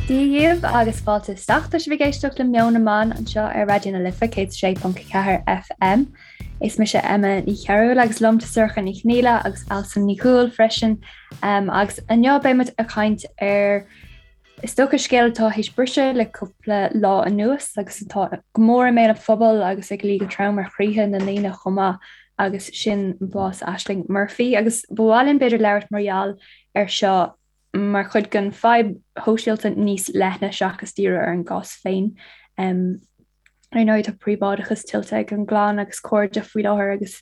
Dia dhaoibh agus fáilte isteach. Tá sibh ag éisteacht le Meon na mBan anseo ar Raidió na Life 106.4 FM. Is mise Emma Ní Chearúil agus liom tá Sorcha Ní Chonghaile agus Alison Ní Dhubhghaill freisin. Um, agus inniu beidh muid ag caint ar Is dócha scéal atá théis briseadh le cúpla lá anuas agus atá go mór i mbéal an phobail agus ag luí go trom ar chroíthe na ndaoine chomh maith agus sin bás Ashling Murphy agus ba mhaith linn b'fhéidir labhairt mar gheall ar seo mar chuid den fadhb shóisialta níos leithne seachas díriú ar an gcás féin. Ar ndóigh tá príobháideachas tuillte ag an gclann agus cairde faoi láthair agus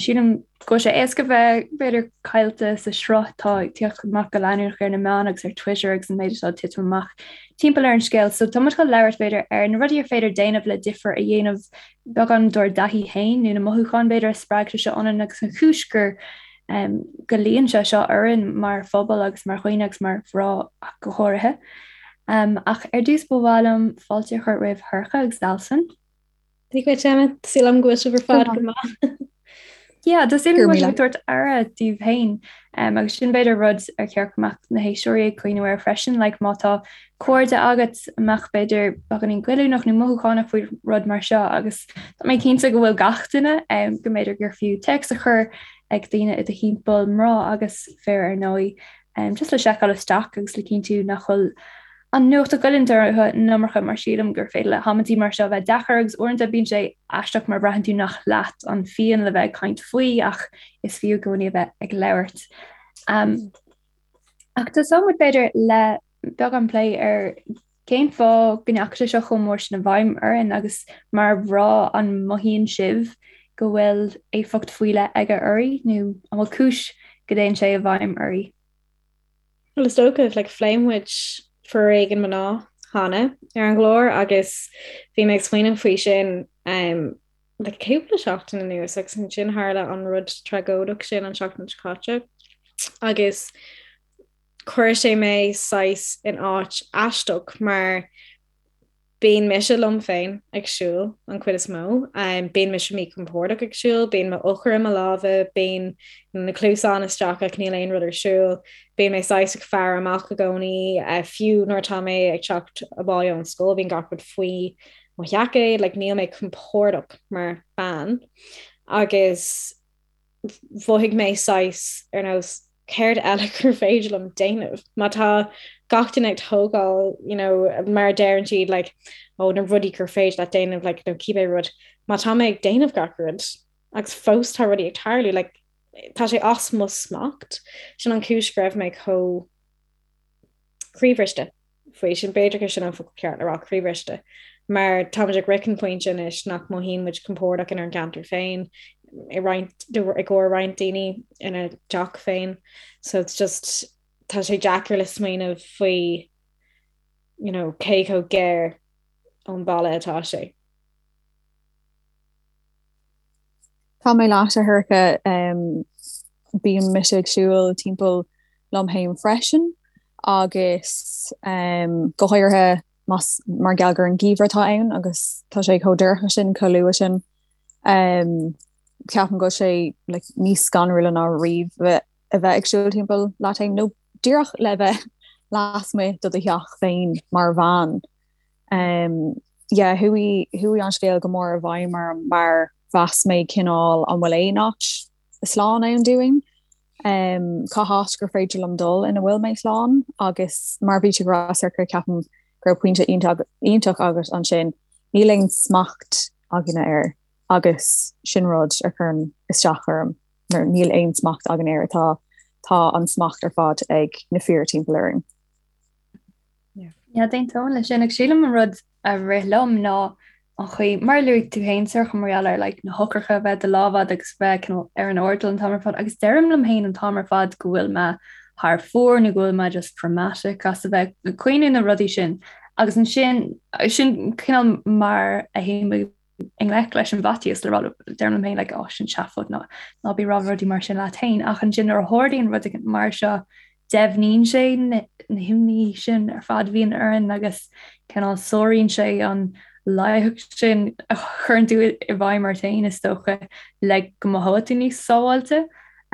sílim go bhfuil sé éasca bheith b'fhéidir caillte sa sruth atá ag tíocht amach go leanúnach ar na meáin agus ar Twitter agus an méid atá ag titim amach timpeall ar an scéal. So tá muid chun labhairt b'fhéidir ar na rudaí ar féidir déanamh le difear a dhéanamh beagán dár dtaithí féin nó na mothúcháin b'fhéidir a spreag sé seo ionainn agus an chúis gur go luíonn sé seo orainn mar phobal agus mar dhaoine agus mar mhná ach go háirithe. Ach ar dtús ba mhaith liom fáilte a chur roimh Shorcha agus Alison. Dia dhuit Emma, tá súil agam go bhfuil sibh ar fad go maith. Yeah, tá súil agam go bhfuil sibh ag tabhairt aire daoibh féin agus sin b'fhéidir rud ar cheart go mbeadh na héisteoirí ag cuimhneamh air freisin, like má tá cairde agat a mbeadh b'fhéidir beagáinín goilliúnach nó mothúchánach faoi rud mar seo agus tá mé cinnte go bhfuil gach duine go mb'fhéidir gur fiú téacs a chur ag daoine i do thimpeall, mná agus fir ar ndóigh, just le seiceáil isteach agus le cinntiú nach bhfuil an nuacht ag goilliúint orthu an iomarca mar sílim gur féidir le hamantaí mar seo bheith deacair agus uaireanta bíonn sé aisteach mar braitheann tú nach leat an phian le bheith ag caint faoi ach is fiú i gcónaí a bheith ag labhairt. Ach tosóidh muid b'fhéidir le beagán plé ar cén fáth go ndeachaigh sé seo chomh mór sin i bhfeidhm orainn agus mar mhná an mothaíonn sibh go bhfuil éifeacht faoi leith aige oraibh nó an bhfuil cúis go dtéann sé i bhfeidhm oraibh? Bhuel is dócha, like, phléigh muid foréigean mná cheana ar an gclár agus bhí mé ag smaoineamh faoi sin um, le cúpla seachtain anuas agus ansin tharla an rud tragóideach sin an seachtain seo caite agus chuir sé mé saghas in áit aisteach mar bíonn mise liom féin ag siúl an chuid is mó, bíonn mise míchompordach ag siúl, bíonn m'eochair i mo lámha, bíonn na cluasáin isteach ach níl aon rud ar siúl, bíonn mé saghas ag faire amach i gcónaí, fiú nuair atá mé ag teacht abhaile ón scoil bíonn gach rud faoi mo sheaicéad, like níl mé compordach mar bean agus mhothaigh mé saghas ar nós céard eile gur féidir liom déanamh má tá gach duine ag tógáil you know mar a deireann siad like ó na rudaí gur féidir leat déanamh like nó cibé rud má tá mé ag déanamh gach rud agus fós tá rudaí ag tarlú like tá sé as mo smacht sin an chúis go raibh mé chomh croíbhriste faoi sin. B'fhéidir gur sin an focal ceart le rá, croíbhriste. Mar táimid ag sroicheadh an pointe anois nach mothaíonn muid compordach inár gceantar féin, i roinnt, i gcomhair roinnt daoine ina dteach féin. So it's just, tá sé deacair le smaoineamh faoi, you know, cé chomh gar ón bhaile atá sé. Tá mé leat, a Shorcha. Bíonn mise ag siúl timpeall liom féin freisin agus go háirithe más mar gheall gur an geimhreadh atá ann agus tá sé chomh dorcha sin, chomh luath sin. Ceapaim go bhfuil sé like níos scanrúla ná riamh a bheith ag siúl timpeall leat féin nó díreach le bheith lasmuigh de do theach féin mar bhean. Yeah, chuaigh, chuaigh an scéal go mór i bhfeidhm orm mar mheas mé cineál an bhfuil aon áit slán ann dúinn? Cá háit gur féidir liom dul ina bhfuil mé slán? Agus mar a bhí tú ag rá, Sorcha, ceapaim go raibh pointe iontach, iontach agat ansin, níl aon smacht againne air agus sin rud a chuireann isteach orm nuair níl aon smacht againn air, tá, tá an smacht ar fad ag na fir timpeall orainn. Yeah, d'aontóinn leis sin agus sílim an rud a rith liom ná an chaoi, mar a luaigh tú féin Sorcha mar gheall ar like na heochracha a bheith i do lámh agat agus bheith cineál ar an airdeall an t-am ar fad agus deirim liom féin an t-am ar fad go bhfuil mé thar fóir nó go bhfuil mé just dramatic as a bheith ag cuimhneamh na rudaí sin agus ansin sin cineál mar a théim i ngleic leis an bhfaitíos le rá deirim liom féin like oh sin seafóid ná ná bí ag rá rudaí mar sin leat féin ach ansin nuair a tharlaíonn rud mar seo deimhníonn sé na himní sin ar fad a bhíonn orainn agus cineál sáraíonn sé an láithreacht sin a chuireann tú i bhfeidhm ort féin is dócha le go mothóidh tú níos sábháilte.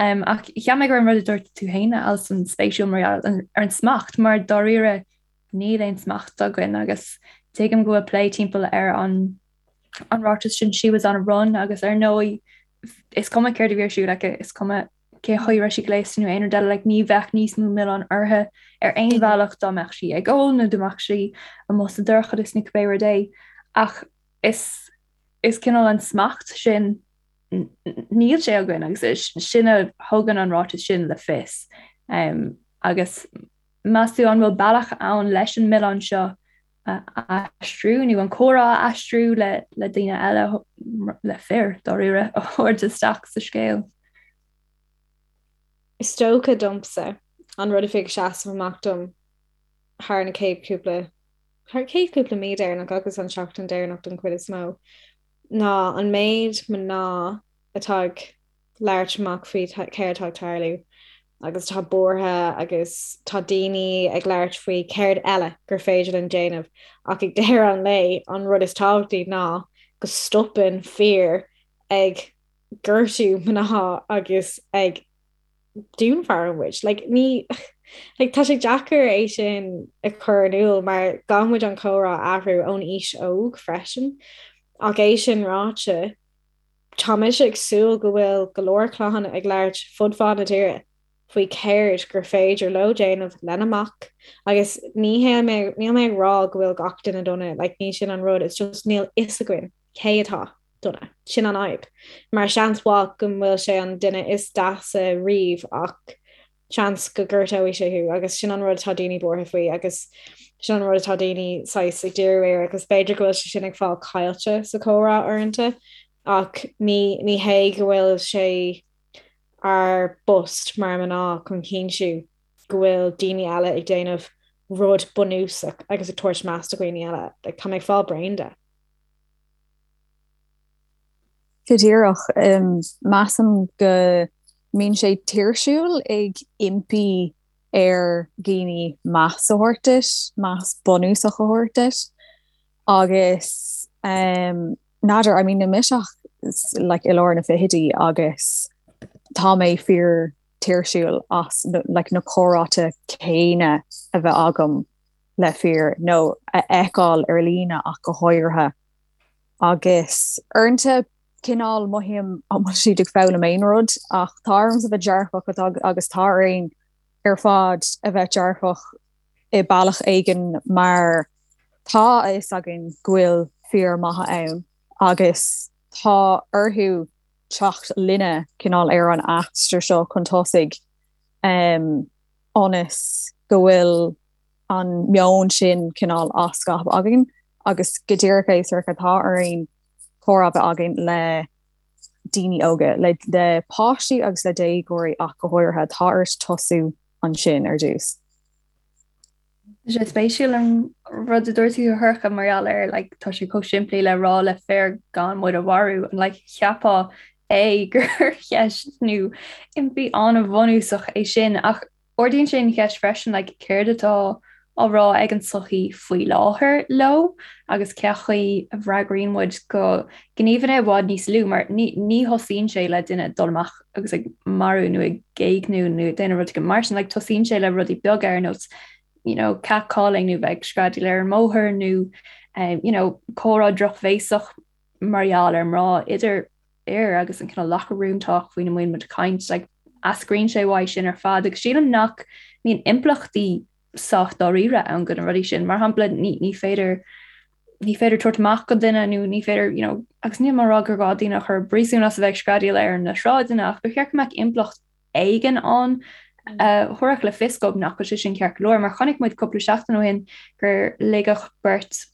Um, ach cheap mé go raibh an rud a dúirt tú féin Alison spéisiúil mar gheall ar an smacht mar dáiríre. Níl aon smacht againn agus tuigim go bhfuil plé timpeall ar an an ráiteas sin 'she was on a run' agus ar ndóigh is cuma céard a bhí ar siúl aici, is cuma cén chaoi a raibh sí gléasta nó aon rud eile, like ní bheadh níos mó milleáin uirthi ar aon bhealach dá mbeadh sí ag ól nó dá mbeadh sí amuigh sa dorchadas nó cibé rud é. Ach is is cineál an smacht sin níl sé againn agus sin a thugann an ráiteas sin le fios. Um, agus meas tú an bhfuil bealach ann leis an milleán seo a aistriú nó an comhrá a aistriú le le daoine eile le fir dáiríre a thabhairt isteach sa scéal? Is dócha domsa an rud a bhí ag seasamh amach dom thar na chéad cúpla thar chéad cúpla mí deireanach agus an seachtain deireanach don chuid is mó ná an méid mná atá ag labhairt amach faoi céard atá ag tarlú agus atá buartha agus tá daoine ag labhairt faoi céard eile gur féidir linn déanamh ach ag deireadh an lae an rud is tábhachtaí ná go stopann fir ag gortú mná agus ag dúnmharú muid. Like, ní like, tá sé deacair é sin a chur in iúl mar caithfidh muid an comhrá a athrú ón aois óg freisin. Ach é sin ráite, tá mise ag súil go bhfuil go leor clann ag labhairt fud fad na tíre faoi céard gur féidir leo déanamh lena mac agus ní hé níl mé ag rá go bhfuil gach duine dona, like, ní sin an rud, it's just níl fhios againn cé atá dona. Sin an fhadhb. Mar seans mhaith go bhfuil sé an duine is deasa riamh ach seans go gortóidh sé thú agus sin an rud atá daoine buartha faoi agus sin an rud atá daoine saghas ag díriú air agus b'fhéidir go bhfuil sé sin ag fáil caillte sa chomhrá uaireanta ach ní ní hé go bhfuil sé ár bpost mar mná chun cinntiú go bhfuil daoine eile ag déanamh rud bunúsach agus ag tabhairt meas do dhaoine eile. Like, tá mé ag fáil bréan de. Go díreach. Measaim go mbíonn sé tuirsiúil ag impí ar dhaoine meas a thabhairt duit, meas bunúsach a thabhairt duit. Agus n'fheadar, I mean níl mise ach like i lár na fichidí agus tá mé fíor tuirsiúil as like na comhráite céanna a bheith agam le fir nó a fheiceáil ar líne ach go háirithe. Agus uaireanta cineál mothaím an bhfuil siad ag foghlaim aon rud ach tá ormsa bheith dearfach agus tá orainn ar fad a bheith dearfach i bealach éigin mar tá a fhios againn go bhfuil fir maithe ann agus tá orthu teacht linne cineál ar an aistear seo chun tosaigh ionas go bhfuil an meon sin cineál á scaipeadh againn agus go díreach é Sorcha tá orainn comhrá a bheith againn le daoine óga, le le páistí agus le déagóirí ach go háirithe, tá ort tosú ansin ar dtús. Tá sé spéisiúil an rud a dúirt tú a Shorcha mar gheall ar like tá sé chomh simplí le rá le fir gan muid a mharú and like cheapfá é gur cheist nó impí an-bhunúsach é sin ach Ardaíonn sé an cheist freisin like céard atá á rá ag an tsochaí faoi láthair leo agus cén chaoi a bhfreagraíonn muid go gníomhanna i bhfad níos lú mar ní ní thosaíonn sé le duine dul amach agus ag marú nó ag éigniú nó ag déanamh rud éigin mar sin like tosaíonn sé le rudaí beaga ar nós you know catcalling nó bheith ag screadaíl ar an mbóthar nó um, you know comhrá drochbhéasach mar gheall ar mná idir fhir agus an cineál locker room talk faoina mbíonn muid ag caint, like, eascraíonn sé uaidh sin ar fad agus sílim nach mbíonn impleachtaí sách dáiríre ann do na rudaí sin. Mar shampla, ní, ní féidir ní féidir tabhairt amach go duine nó ní féidir, you know, agus níl mé ag rá gur gá daoine a chur i bpríosún as a bheith ag screadaíl ar na sráideanna ach ba cheart go mbeadh impleacht éigin ann a thabharfadh le fios dóibh nach bhfuil sé sin ceart go leor. Mar chonaic muid cúpla seachtain ó shin gur ligeadh beirt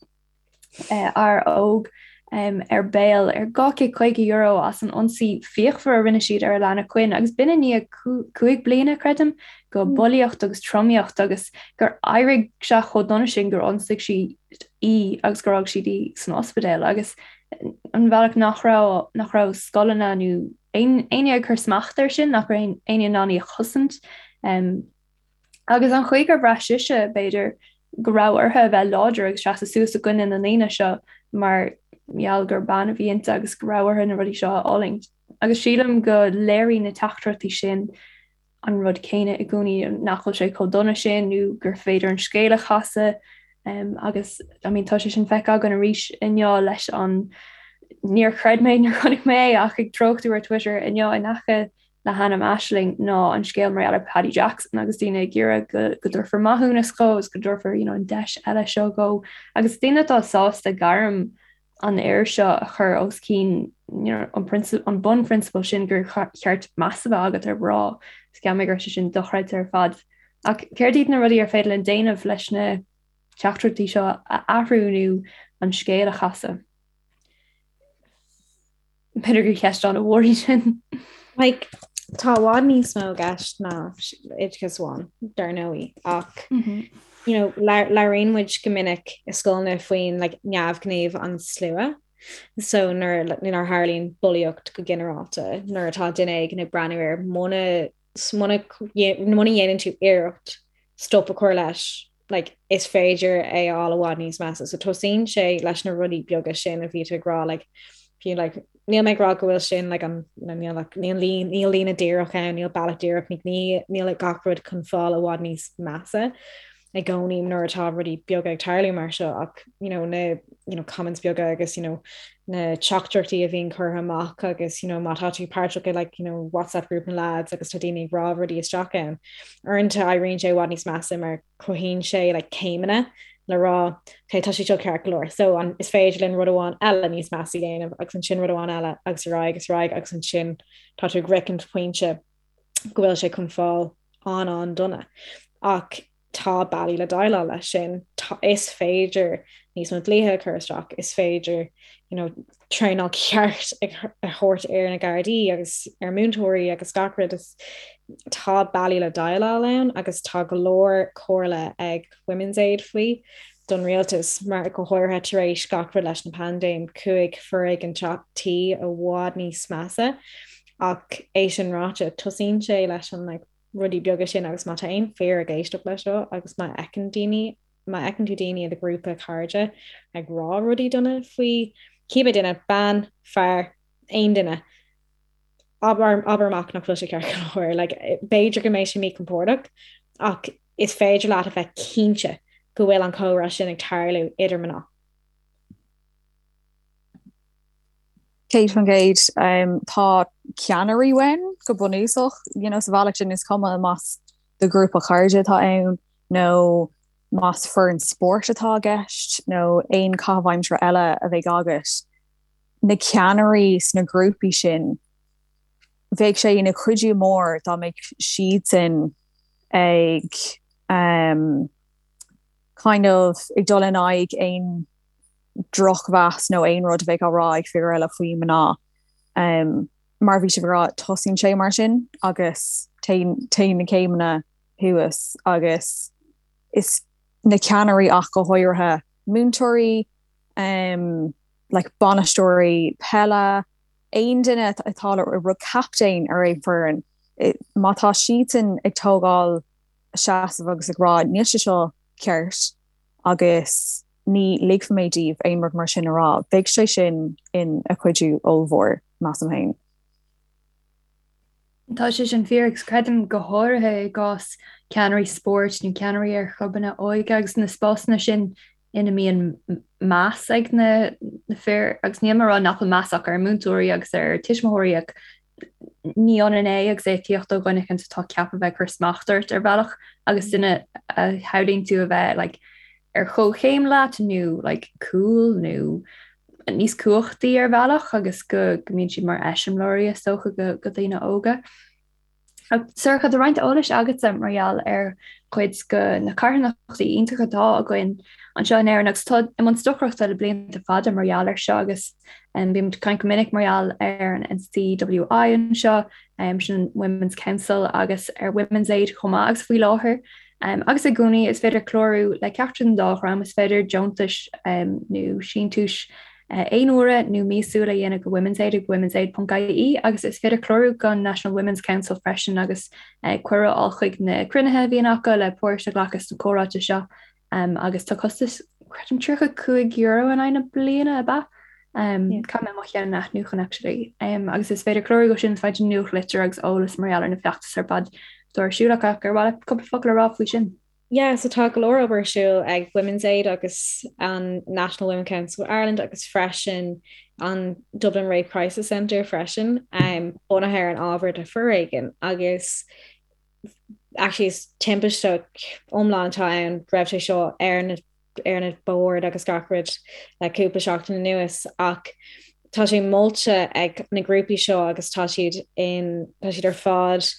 fhear óg ar bail ar €250 as an ionsaí fíochmhar a rinne siad ar Alana Quinn agus b'in i ndiaidh 5 bliana, creidim, de bhulaíocht agus tromaíocht agus gur éirigh sé chomh dona sin gur ionsaigh siad í agus gur fhág siad í san ospidéal agus an bhealach nach raibh nach raibh scoileanna nó éinne ag cur smacht air sin, nach raibh éinne in ann í a chosaint. Agus an chaoi gur bhraith sise, b'fhéidir, go raibh uirthi a bheith láidir agus seasamh suas i gcoinne na ndaoine seo mar gheall gur bean a bhí inti agus go raibh uirthi na rudaí seo a fhulaingt. Agus sílim go léiríonn na teachtaireachtaí sin. an rud céanna i gcónaí, nach bhfuil sé chomh dona sin nó gur féidir an scéal a chasadh agus I mean tá sé sin feicthe againn arís inniu leis an níor chreid mé nuair a chonaic mé é ach ag treochtú ar Twitter inniu in aice le hainm Aisling ná an scéal mar gheall ar Paddy Jackson agus daoine ag iarraidh go go dtabharfar maithiúnas dhó agus go dtabharfar you know, an deis eile seo dhó agus daoine atá sásta gairm an fhir seo a chur os cionn you know, an, an bunphrionsabal sin gur cheart meas a bheith agat ar mhná. Is cheap mé go raibh sé sin dochreidte ar fad. Ach céard iad na rudaí ar féidir linn déanamh leis na teachtaireachtaí seo a athrú nó an scéal a chasadh? B'fhéidir gur cheist an-mhór í sin. Like, tá i bhfad níos mó i gceist ná oideachas amháin, dar ndóigh, ach mm -hmm. you know, labhraíonn muid go minic i scoileanna faoin like, neamhghníomh an slua. So nuair nuair a tharlaíonn bulaíocht go ginearálta, nuair atá duine éigin ag breathnú air muna muna muna dhéanann tú iarracht stop a chur leis, like, is féidir é a fháil i bhfad níos measa. So tosaíonn sé leis na rudaí beaga sin a bhí tú ag rá, like, fiú, like, níl mé ag rá go bhfuil sin like, an, you know, níl, like, níl, lín, níl líne díreach ann, níl bealach díreach, ní, ní, níl like, gach rud chun fáil i bhfad níos measa i gcónaí nuair atá rudaí beaga ag tarlú mar seo ach you know, na you know, comments beaga agus you know, na teachtaireachtaí a bhíonn curtha amach agus you know, má tá tú páirteach i like, you know, WhatsApp group na lads agus tá daoine ag rá rudaí isteach ann. Uaireanta éiríonn sé i bhfad níos measa mar cruthaíonn sé like, céimeanna le rá okay, tá sé seo ceart go leor. So an, is féidir linn rud amháin eile níos measa a dhéanamh agus ansin rud amháin eile agus ar aghaidh agus ar aghaidh agus ansin tá tú ag sroichint pointe go bhfuil sé chun fáil an-an-dona. Ach tá bealaí le déileáil leis sin. Is féidir níos mó dlíthe a chur isteach, is féidir you know, traenáil ceart a thabhairt ar na Gardaí agus ar múinteoirí agus gach rud. Tá bealaí le déileáil ann agus tá go leor comhairle ag Women's Aid faoi don rialtas mar go háirithe tar éis gach rud leis na paindéim chuaigh foréigean tí i bhfad níos measa ach é sin ráite tosaíonn sé leis an like, rudaí beaga sin agus má tá aon fir ag éisteacht leis seo agus má fheiceann daoine, má fheiceann tú daoine i do ghrúpa cairde ag rá rudaí dona faoi cibé duine, bean, fear, aon duine, abair, abair amach nach bhfuil sé ceart go leor. Like, b'fhéidir go mbeidh sé míchompordach ach is féidir leat a bheith cinnte go bhfuil an comhrá sin ag tarlú idir mná. 100%. Tá ceannairí uainn go bunúsach, you know, sa bhealach sin is cuma más do ghrúpa cairde atá ann nó más foireann spóirt atá i gceist nó aon chaitheamh aimsire eile a bheidh agat, na ceannairí sna grúpaí sin, bheadh sé ina chuidiú mór dá mbeadh siadsan ag um, kind of ag dul in aghaidh aon drochmheas nó aon rud a bheadh á rá ag fir eile faoi mná. Mar a bhí sibh ag rá, tosaíonn sé mar sin agus téann téann na céimeanna thuas agus is na ceannairí ach go háirithe múinteoirí, like bainisteoirí peile, aon duine atá le captaen ar aon foireann, má tá siadsan ag tógáil seasamh agus ag rá níl sé seo ceart agus ní ligfidh mé daoibh aon rud mar sin a rá, beidh sé sin ina chuidiú ollmhór, measaim féin. Tá sé sin fíor agus creidim go háirithe i gcás ceannairí spóirt nó ceannairí ar chlubanna óige agus na spásanna sin ina mbíonn meas ag na fir agus níl mé ag rá nach bhfuil meas acu ar múinteoirí agus ar tuismitheoirí ach ní ionann é agus é ag tíocht ó dhuine éicint atá ceaptha a bheith ag cur smacht ort ar bhealach agus duine a shamhlaíonn tú a bheith like, ar chomhchéim leat nó like, cool nó níos cumhachtaí ar bhealach agus go go mbíonn siad mar eiseamláirí is dócha go, go daoine óga. Sorcha, tá roinnt eolais agatsa mar gheall ar chuid de na carthanachtaí iontacha atá againn anseo in Éirinn agus atá i mbun stocaireachta le blianta fada mar gheall air seo agus bímid ag caint go minic mar gheall ar an NCWI anseo, sin an Women's Council agus ar Women's Aid chomh maith agus faoi láthair agus i gcónaí is féidir clárú le ceachtar den dá dhream, is féidir deontais nó síntiúis aon uaire nó míosúil a dhéanamh go Women's Aid ag womensaid.ie agus is féidir clárú don National Women's Council freisin agus cuireadh a fháil chuig na cruinnithe a bhíonn acu le páirt a ghlacadh sna comhráite seo agus tá costas creidim €35 in aghaidh na bliana ab ea? Caithfidh mé mo cheann a athnuachan actually. Agus is féidir clárú dó sin is féidir nuachtlitir agus eolas mar gheall ar na feachtais ar fad. atá ar siúl acu. Ar mhaith leat cúpla focal a rá faoi sin? Yeah, so tá go leor obair ar siúl ag Women's Aid agus an National Women Council of Ireland agus freisin an Dublin Rape Crisis Centre freisin, um, bunaithe ar an ábhar de foréigean agus actually is timpiste iomlán atá ann raibh sé seo ar na ar na boird agus gach rud le cúpla seachtain anuas ach tá sé molta ag na grúpaí seo agus tá siad in tá siad ar fad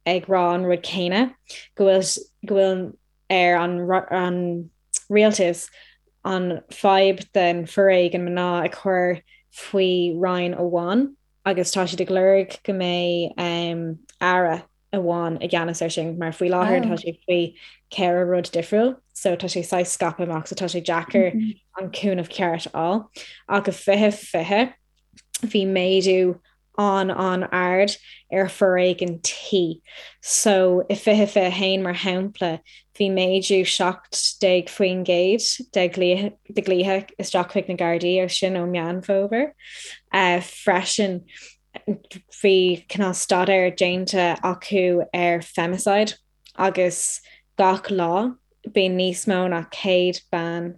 ag rá an rud céanna go bhfuil go bhfuil ar an an rialtas an fadhb den foréigean mná a chur faoi roinn amháin agus tá siad ag lorg go mbeidh um, aire amháin i gceannas air sin mar faoi láthair tá sé faoi cheithre rud difriúil so tá sé saghas scaipthe amach so tá sé deacair mm -hmm. an cúnamh ceart a fháil ach i 2020 bhí méadú an-an-ard ar foréigean tí. So i 2021 mar shampla bhí méadú 17% de de ghlaoithe isteach chuig na Gardaí agus sin ó Meán Fómhair. Uh, freisin bhí cineál staidéar déanta acu ar femicide agus gach lá bíonn níos mó ná 100 bean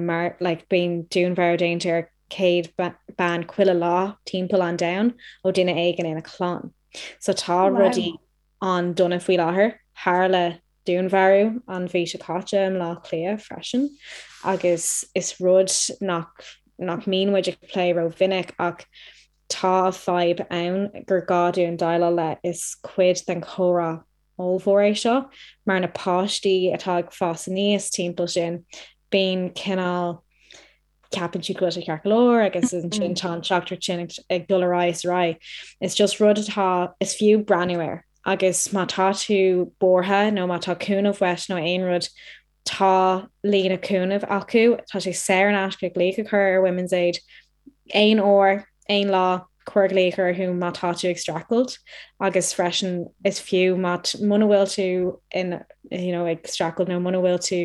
mar like bíonn dúnmharú déanta ar 100 bean chuile lá timpeall an domhain ó duine éigin ina clann. So tá wow. rudaí an-dona faoi láthair. Tharla dúnmharú an mhí seo caite i mBleá Cliath freisin agus is rud nach nach mbíonn muid ag plé rómhinic ach tá fadhb ann gur gá dúinn déileáil le is cuid den chomhrá ollmhór é seo mar na páistí atá ag fás aníos timpeall sin bíonn cineál ceapann siad go bhfuil sé ceart go leor agus ansin tá an teachtaireacht sin ag dul ar aghaidh is ar aghaidh. Is just rud atá is fiú breathnú air agus má tá tú buartha nó má tá cúnamh uait nó aon rud tá líne cúnaimh acu, tá sé saor in aisce glaoch a chur ar Women's Aid aon uair, aon lá, cuir glaoch orthu má tá tú ag streachailt agus freisin is fiú má muna bhfuil tú in you know, ag streachailt nó muna bhfuil tú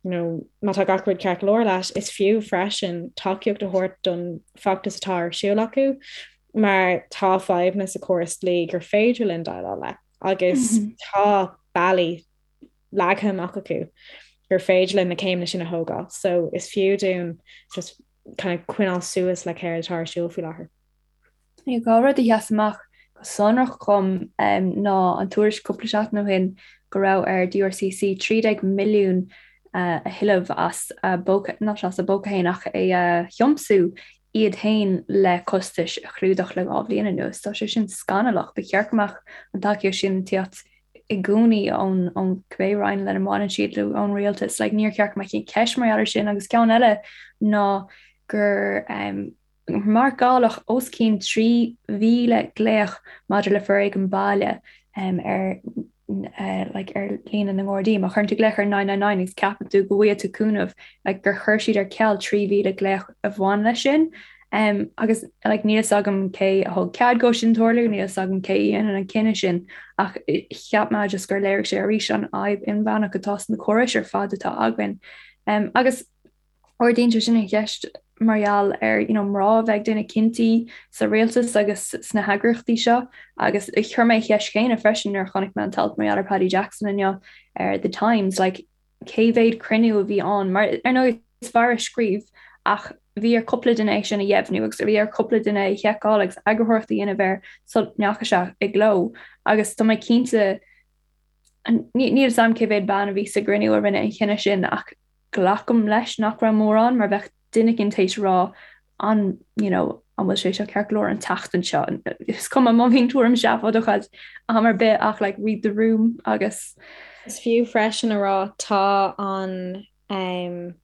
you know, má tá gach rud ceart go leor leat, is fiú freisin tacaíocht a thabhairt don feachtas atá ar siúl acu mar tá fadhbanna sa chóras dlí gur féidir linn déileáil le agus mm -hmm. tá bealaí leagtha amach acu gur féidir linn na céimeanna sin a thógáil. So is fiú dúinn just kind of coinneáil suas le céard atá ar siúl faoi láthair. Dhá rud a sheas amach go sonrach dhom ná an tuairisc cúpla seachtain ó shin go raibh ar DRCC 13 milliún a thuilleamh as a bpóca, not as a bpóca féin ach é a thiomsú iad féin le costais a chlúdach le dhá bhliain anuas. Tá sé sin scannalach. Ba cheart go mbeadh an tacaíocht sin ag tíocht i gcónaí ón ón cibé roinn lena mbaineann siad nó ón rialtas. Like, níor cheart go mbeadh aon cheist mar gheall air sin agus ceann eile ná gur um, marcáladh os cionn 3,000 glaoch maidir le foréigean baile um, ar uh, like, ar líne na nGardaí. Má chuireann tú glaoch ar 999 agus ceapann tú go bhfaighidh tú cúnamh like, gur chuir siad ar ceal 3,000 glaoch a bhain leis sin. Um, agus like, níl fhios agam cé a thug cead dó sin tarlú, níl fhios agam cé a dhéanann an cinneadh sin, ach cheap mé just gur léirigh sé arís an fhadhb inmheánach atá sna córais ar fad atá againn. Um, agus ardaíonn sé sin an cheist mar gheall ar you know, mná a bheith ag déanamh cinntí sa rialtas agus sna heagraíochtaí seo agus chuir mé an cheist chéanna freisin nuair a chonaic mé an t-alt mar gheall ar Paddy Jackson inniu ar The Times, like, cé mhéad cruinniú a bhí ann, mar ar ndóigh is fear a scríobh ach bhí ar cúpla duine é sin a dheimhniú agus bhí ar cúpla duine é a sheiceáil agus eagarthóireacht a dhéanamh air sula ndeachaigh sé i gcló agus tá mé cinnte níl fhios agam cé mhéad bean a bhí sa gcruinniú a rinne an chinneadh sin ach glacaim leis nach raibh mórán mar bheadh duine éicint théis rá an you know an bhfuil sé seo ceart go leor an tseachtain seo is cuma má bhíonn tuairim seafóideach agat am ar bith ach like read the room agus Is fiú freisin a rá tá an um,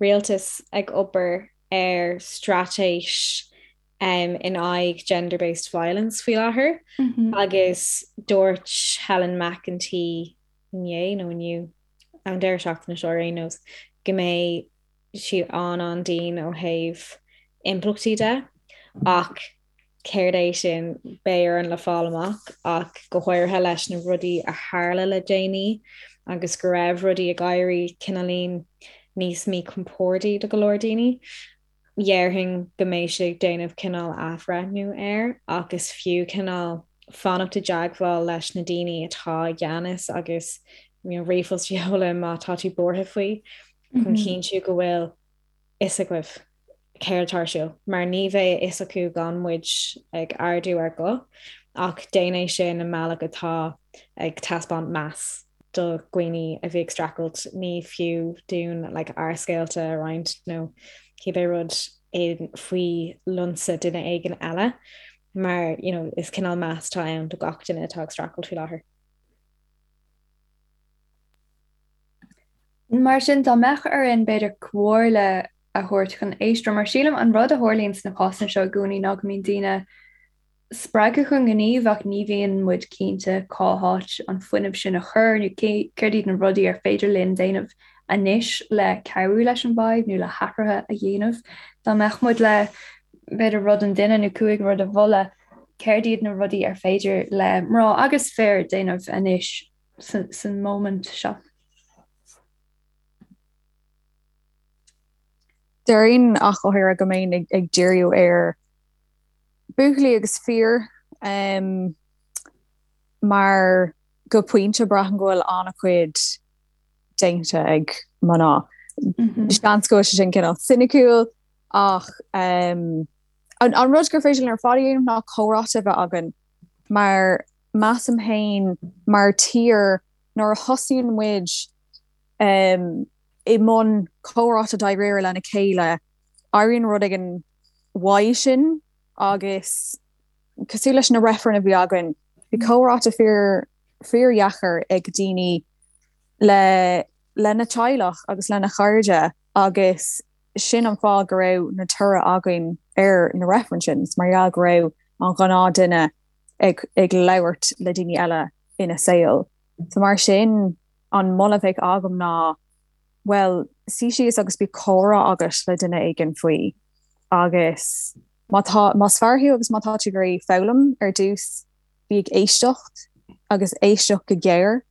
rialtas ag obair ar straitéis um, in aghaidh gender-based violence faoi láthair mm -hmm. agus dúirt Helen McEntee inné nó inniu an deireadh seachtaine seo ar aon nós go mbeidh siad an-an-dian ó thaobh impleachtaí de ach céard é sin beidh orainn le fáil amach ach go háirithe leis na rudaí a tharla le déanaí agus go raibh rudaí ag éirí cineáilín níos míchompordaí do go leor daoine. Dhéarfainn go mbeidh siad ag déanamh cineál athbhreithniú air ach is fiú cineál. Fanacht i dteagmháil leis na daoine atá i gceannas agus you know, ríomhphost a sheoladh má tá tú buartha faoi chun cinntiú go bhfuil fhios agaibh céard atá ar siúl, mar ní bheidh a fhios acu gan muid ag ardú ár guth, ach déan é sin i mbealach atá ag taispeáint meas do dhaoine a bhí ag streachailt. Ní fiú dúinn like ár scéalta a roinnt nó cibé rud faoi lionsa duine éigin eile, mar you know is cineál meas atá ann do gach duine atá ag streachailt faoi láthair. Mar sin, dá mbeadh orainn, b'fhéidir, comhairle a thabhairt chun éisteoirí, mar sílim an rud a tharlaíonn sna cásanna seo i gcónaí ná go mbíonn daoine spreagtha chun gnímh ach ní bhíonn muid cinnte cá háit an fuinneamh sin a chur nó céard iad na rudaí ar féidir linn déanamh anois le cabhrú leis an bhfadhb nó le hathruithe a dhéanamh. Dá mbeadh muid le, b'fhéidir, rud an duine nó 5 rud a mholadh, céard iad na rudaí ar féidir le mná agus fir déanamh anois san móimint seo. Déarfainn ach go háirithe go mbeinn ag díriú ar buachaillí agus fir mar go pointe braithim go bhfuil an-chuid déanta ag mná. Seans go bhfuil sé sin cineál soiniciúil ach an rud gur féidir linn ar fad a dhéanamh ná comhráite a bheith againn mar measaim féin mar tír nuair a thosaíonn muid i mbun comhráite dáiríre lena chéile, éiríonn rud éigin uaidh sin agus cosúil leis na reifrinn a bhí againn, bhí comhráite fíor fíordheacair ag daoine le lena teaghlach agus lena chairde agus sin an fáth go raibh na toradh againn ar na reifrinn sin, is mar gheall go raibh an ghnáth duine ag ag labhairt le daoine eile ina saol. So mar sin an moladh a bheadh agam ná bhuel suigh síos agus bíodh comhrá agat le duine éigin faoi agus má tá más fear thú agus má tá tú ag iarraidh foghlaim ar dtús bí ag éisteacht agus éisteacht go géar.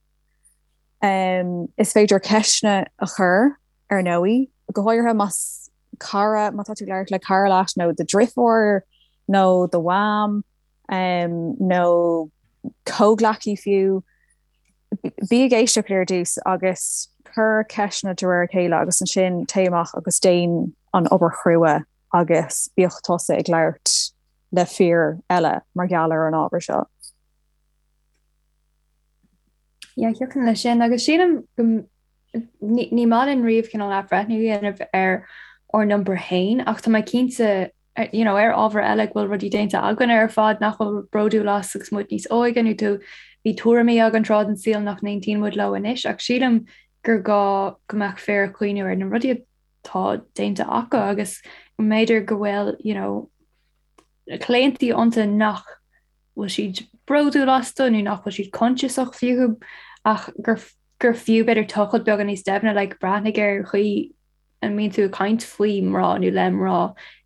Um, is féidir ceisteanna a chur ar ndóigh, go háirithe más cara, má tá tú ag labhairt le cara leat nó do dhriofúr nó do mham nó comhghleacaí fiú, bí ag éisteacht ar dtús agus cuir ceisteanna de réir a chéile agus ansin téigh amach agus déan an obair chrua agus bíodh tusa ag labhairt le fir eile mar gheall ar an ábhar seo. Yeah, thiocfainn leis sin agus sílim go ní maith linn riamh cineál athbhreithniú a dhéanamh ar ár n-iompar féin ach tá mé cinnte you know, ar ábhar eile go bhfuil rudaí déanta againn ar fad nach bhfuil bródúil as agus muid níos óige nó tú bhí tuairimí againn tráth den saol nach n-aontaíonn muid leo anois ach sílim gur gá go mbeadh fir ag cuimhniú ar na rudaí atá déanta acu agus go mb'fhéidir go bhfuil you know, claontaí iontu nach bhfuil siad bródúil astu nó nach bhfuil siad coinsiasach fúthu ach gur gur fiú b'fhéidir tochailt beagán níos doimhne like breathnaigh ar an chaoi a mbíonn tú ag caint faoi mná nó le mná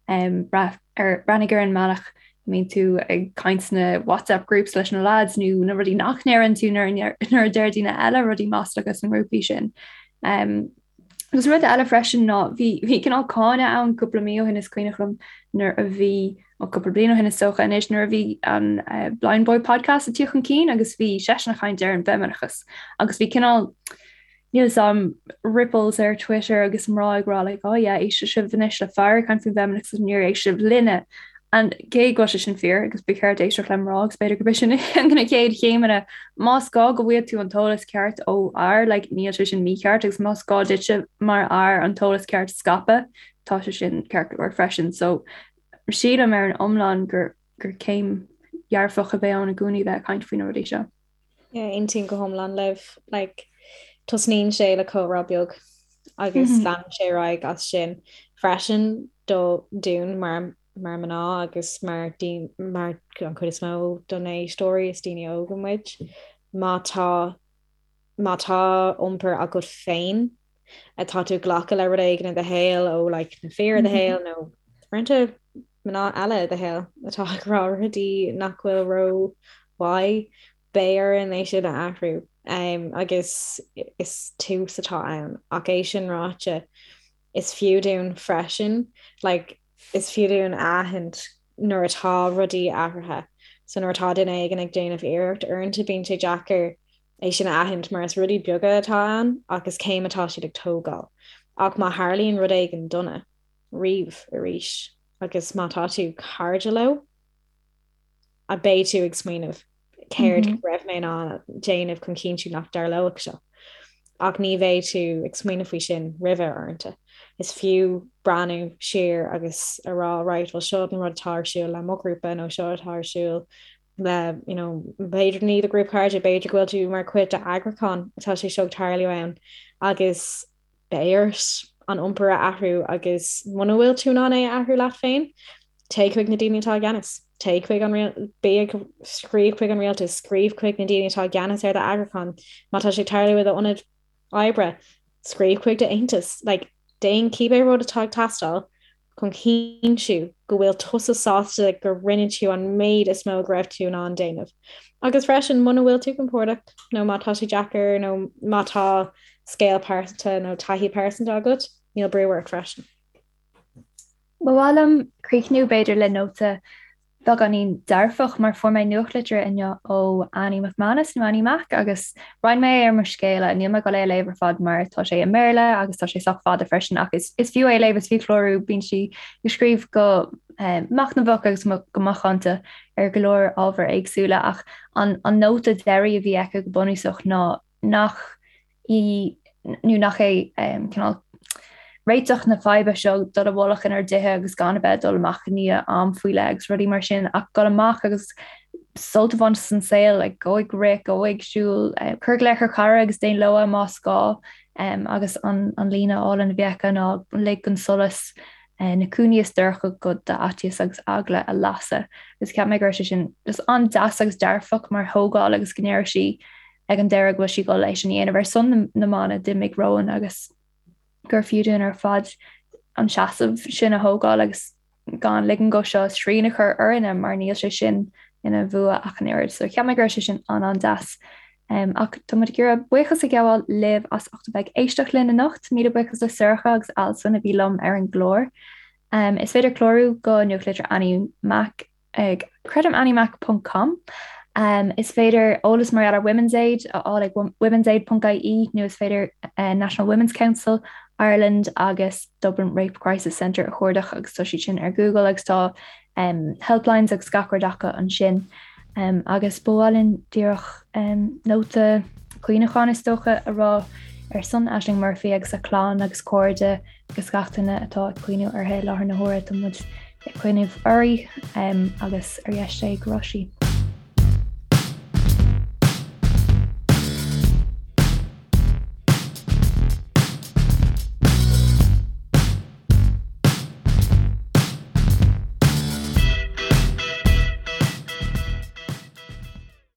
um, breath, ar, breathnaigh ar an mbealach a mbíonn tú ag caint sna WhatsApp groups leis na lads nó na rudaí nach ndeireann tú nuair nuair a deir daoine eile rudaí maslacha sna ngrúpaí sin. Um, Agus rud eile freisin ná bhí bhí cineál cáineadh ann cúpla mí ó shin is cuimhneach liom nuair a bhí ó cúpla bliain ó shin is dócha anois nuair a bhí an uh, Blindboy podcast ag tíocht chun cinn agus bhí seisean ag caint ar an bhfeimineachas agus bhí cineál níl 'fhios a'm ripples ar Twitter agus mná ag rá like oh yeah éistfidh sibh anois le fear ag caint faoin bhfeimineachas agus níor éist sibh linne And cé go bhfuil sé sin fíor agus ba cheart éisteacht le mná agus b'fhéidir gurb é sin na chéad chéimeanna, más gá go bhfaighidh tú an t-eolas ceart ó fhear, like, níl sé sin mícheart agus más gá duitse mar fhear an t-eolas ceart a scaipeadh, tá sé sin ceart go leor freisin. So sílim ar an iomlán gur gur céim dhearfach a bheidh ann i gcónaí bheith ag caint faoi na rudaí seo. Yeah, aontaím go hiomlán libh. Like, tosnaíonn sé le comhrá beag agus leanann sé ar aghaidh as sin freisin do dúinn mar mar mná agus mar mar an chuid is mó do na éisteoirí is daoine óga muid. Má tá má tá iompar agat féin atá tú ag glacadh le rud éigin i do shaol ó like, na fir i do shaol nó uaireanta mná eile i do shaol atá ag rá rudaí nach bhfuil ró-mhaith, beidh orainn é sin a athrú agus is tús atá ann. Ach é sin ráite, is fiú dúinn freisin, like, is fiú dúinn a aithint nuair atá rudaí athraithe. So nuair atá duine éigin ag déanamh iarracht, uaireanta bíonn sé deacair é sin a aithint mar is rudaí beaga atá ann ach is céim atá siad ag tógáil. Ach má tharlaíonn rud éigin dona riamh arís agus má tá tú cairde leo, a beidh tú ag smaoineamh céard go raibh mé in ann déanamh chun cinntiú nach dtarlódh seo. Ach ní bheidh tú ag smaoineamh faoi sin roimhe uaireanta. Is fiú breathnú siar agus a rá right, well seo an rud atá ar siúl le mo ghrúpa nó seo atá ar siúl le you know, b'fhéidir ní do ghrúpa cairde, b'fhéidir go bhfuil tú mar chuid d'eagrúchán atá sé seo ag tarlú ann agus beidh ort an iompar a athrú agus muna bhfuil tú in ann é a athrú leat féin, téigh chuig na daoine atá i gceannas. Téigh chuig an bí ag scríobh chuig an rialtas, scríobh chuig na daoine atá i gceannas ar d'eagrúchán. Má tá sé ag tarlú i d'ionad oibre, scríobh chuig d'aontas. Like, déan cibé rud atá ag teastáil chun cinntiú go bhfuil tusa sásta go rinne tú an méid is mó go raibh tú in ann déanamh. Agus freisin, muna bhfuil tú compordach nó má tá sé deacair nó má tá scéal pearsanta nó taithí pearsanta agat, níl brú ort freisin. Ba mhaith liom críochnú b'fhéidir le nóta beagáinín dearfach mar fuair mé nuachtlitir inniu ó Annie McManus nó Annie Mac agus roinn mé é ar mo scéala. Níl mé ag dul é a léamh ar fad mar tá sé i mBéarla agus tá sé sách fada freisin ach is is fiú é a léamh, is fiú clárú, bíonn sí ag scríobh go machnamhach agus go macánta ar go leor ábhair éagsúla ach an an nóta deiridh a bhí aici go bunúsach ná nach í nó nach é cineál réiteach na faidhbe seo dul i bhfolach inár dtithe agus gan a bheith ag dul amach i ndiaidh am faoi leith agus rudaí mar sin ach dul amach agus sult a bhaint as an saol, like, gabh ag rith, gabh ag siúl, cuir glaoch ar chara agus déan logha más gá agus an an líne álainn a bhí aici ná lig don solas na cúinní is dorcha de d'fhaitíos agus eagla a lasadh. Agus cheap mé go raibh sé sin just an-deas agus dearfach mar thógáil agus go ndéarfadh sí ag an deireadh go bhfuil sí ag dul é sin a dhéanamh ar son na mban a d'imigh romhainn agus gur fiú dúinn ar fad an seasamh sin a thógáil agus gan ligean dó seo srian a chur orainne mar níl sé sin ina bhua ach an oiread. So cheap mé go raibh sé sin an-an-deas. Um, ach tá muid ag iarraidh buíochas a ghabháil libh as ucht a bheith ag éisteacht linn anocht, míle buíochas le Sorcha agus Alison a bhí liom ar an gclár. Um, is féidir clárú go nuachtlitir Annie Mac ag creidim anniemac ponc com. Is féidir eolas mar gheall ar Women's Aid a fháil ag womensaid ponc ie nó is féidir National Women's Council Ireland agus Dublin Rape Crisis Centre a chuardach agus tá siad sin ar Google agus tá helplines agus gach rud acu ansin. Agus ba mhaith linn díreach nóta cuimhneacháin is dócha a rá ar son Ashling Murphy agus a clann agus cairde agus gach duine atá ag cuimhniú uirthi i láthair na huaire. Tá muid ag cuimhneamh uirthi agus ar dheis Dé go raibh sí.